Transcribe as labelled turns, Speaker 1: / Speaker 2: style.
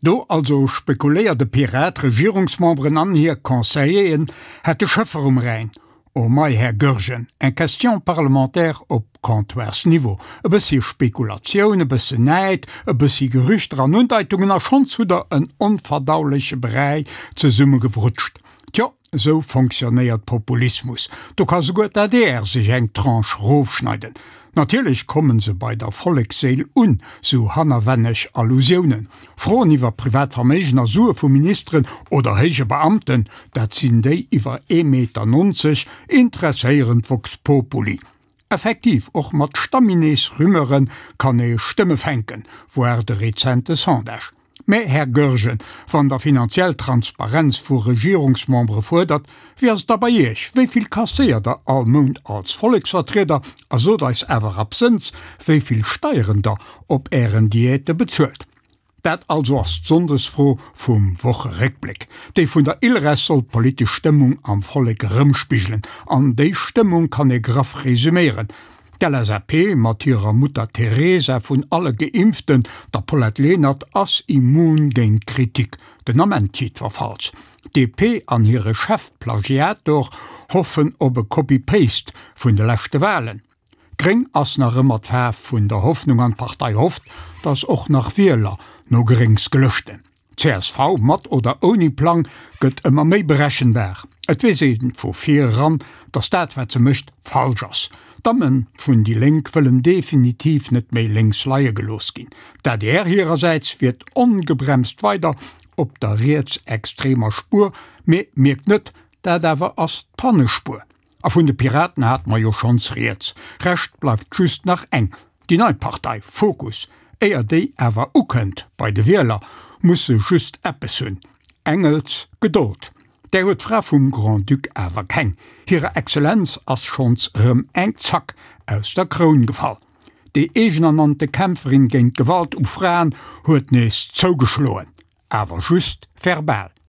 Speaker 1: Do also spekuléiert e Pirat, Regierungsmemberen an hir Conseilleren hätte Schëffer um Rhäin. Oh mei, Här Goergen, eng Question parlementaire op Comptoirsniveau, e bëssi Spekulatioun, e bëssen Näid, e bëssi Gerüchter an Undeitungen a schonns hutt der en onverdauleche Bräi zesummegebrutscht. Tjo, esou fonctionnéiert Populismus. Do ka souguer d'ADR sech eng Tranche rofschneiden. Natierlech kommen se bei der Volleksséil un, sou hannerwänneg Allusiounen. Froen iwwer privat Verméigen a Sue vu Ministeren oder héije Beamten, dat sinn déi iwwer ee Meter 90, interesséieren d'Vox Populi. Effektiv, och mat Stamminees-Rumeure kann ee Stëmme fänken, voir de rezente Sondage. Mä, Här Goergen, wann Der finanziell Transparenz vu Regierungsmembere fuerdert, wéi ass et da bei Iech? Wéi vill kasséiert Der all Mount als Volleksvertrieder? A sot eis awer absënns, wéi vill Steieren Der op Ären Diäte bezuelt. Dat also ass d'Sonndesfro vum Wocheréckbléck. Déi vun der ILReS soll d'politesch Stëmmung am Vollek erëmspigelen. An déi Stëmmung kann ee graff resuméieren, D'LSAP mat hirer Mutter Teresa vun alle Geimpften, der Paulette Lenert, ass immun géint Kritik, den Ament jiddwerfalls. D'DP an hire Chefplagiator hoffen op e Copy-Paste vun de leschte Walen. Gréng ass nach ëmmer d'Faarf vun der Hoffnung an d'Partei hofft, datt och nach Wieler no Gréngs gelëschten. Csv, mat oder ouni Plang, gëtt ëmmer méi berechenbar. Et weess ee vu vir eran, datt dat wat se mécht falsch ass. D'Damme vun déi Lénk wëllen definitiv net méi lénks leie gelooss ginn. D'adr hirersäits fiert ongebremst weider op der rietsextremer Spuer, mee mierkt net, dat awer ass d'Pannespuer. A vun de Piraten hate mer jo schonns rieds. Rescht bleift just nach eng, déi nei Partei Fokus. Éier déi awer ukënnt bei de Wieler, muss se just eppes hunn, Engels Gedold. Där huet d'Fra vum Grand-Duc awer keng. Hirer Exzellenz ass schonns erëm eng Zack aus der Kroun gefall. Déi eegenernannte Kämpferin géint d'Gewalt u Fraen huet nees zougeschloen, awer just verbal.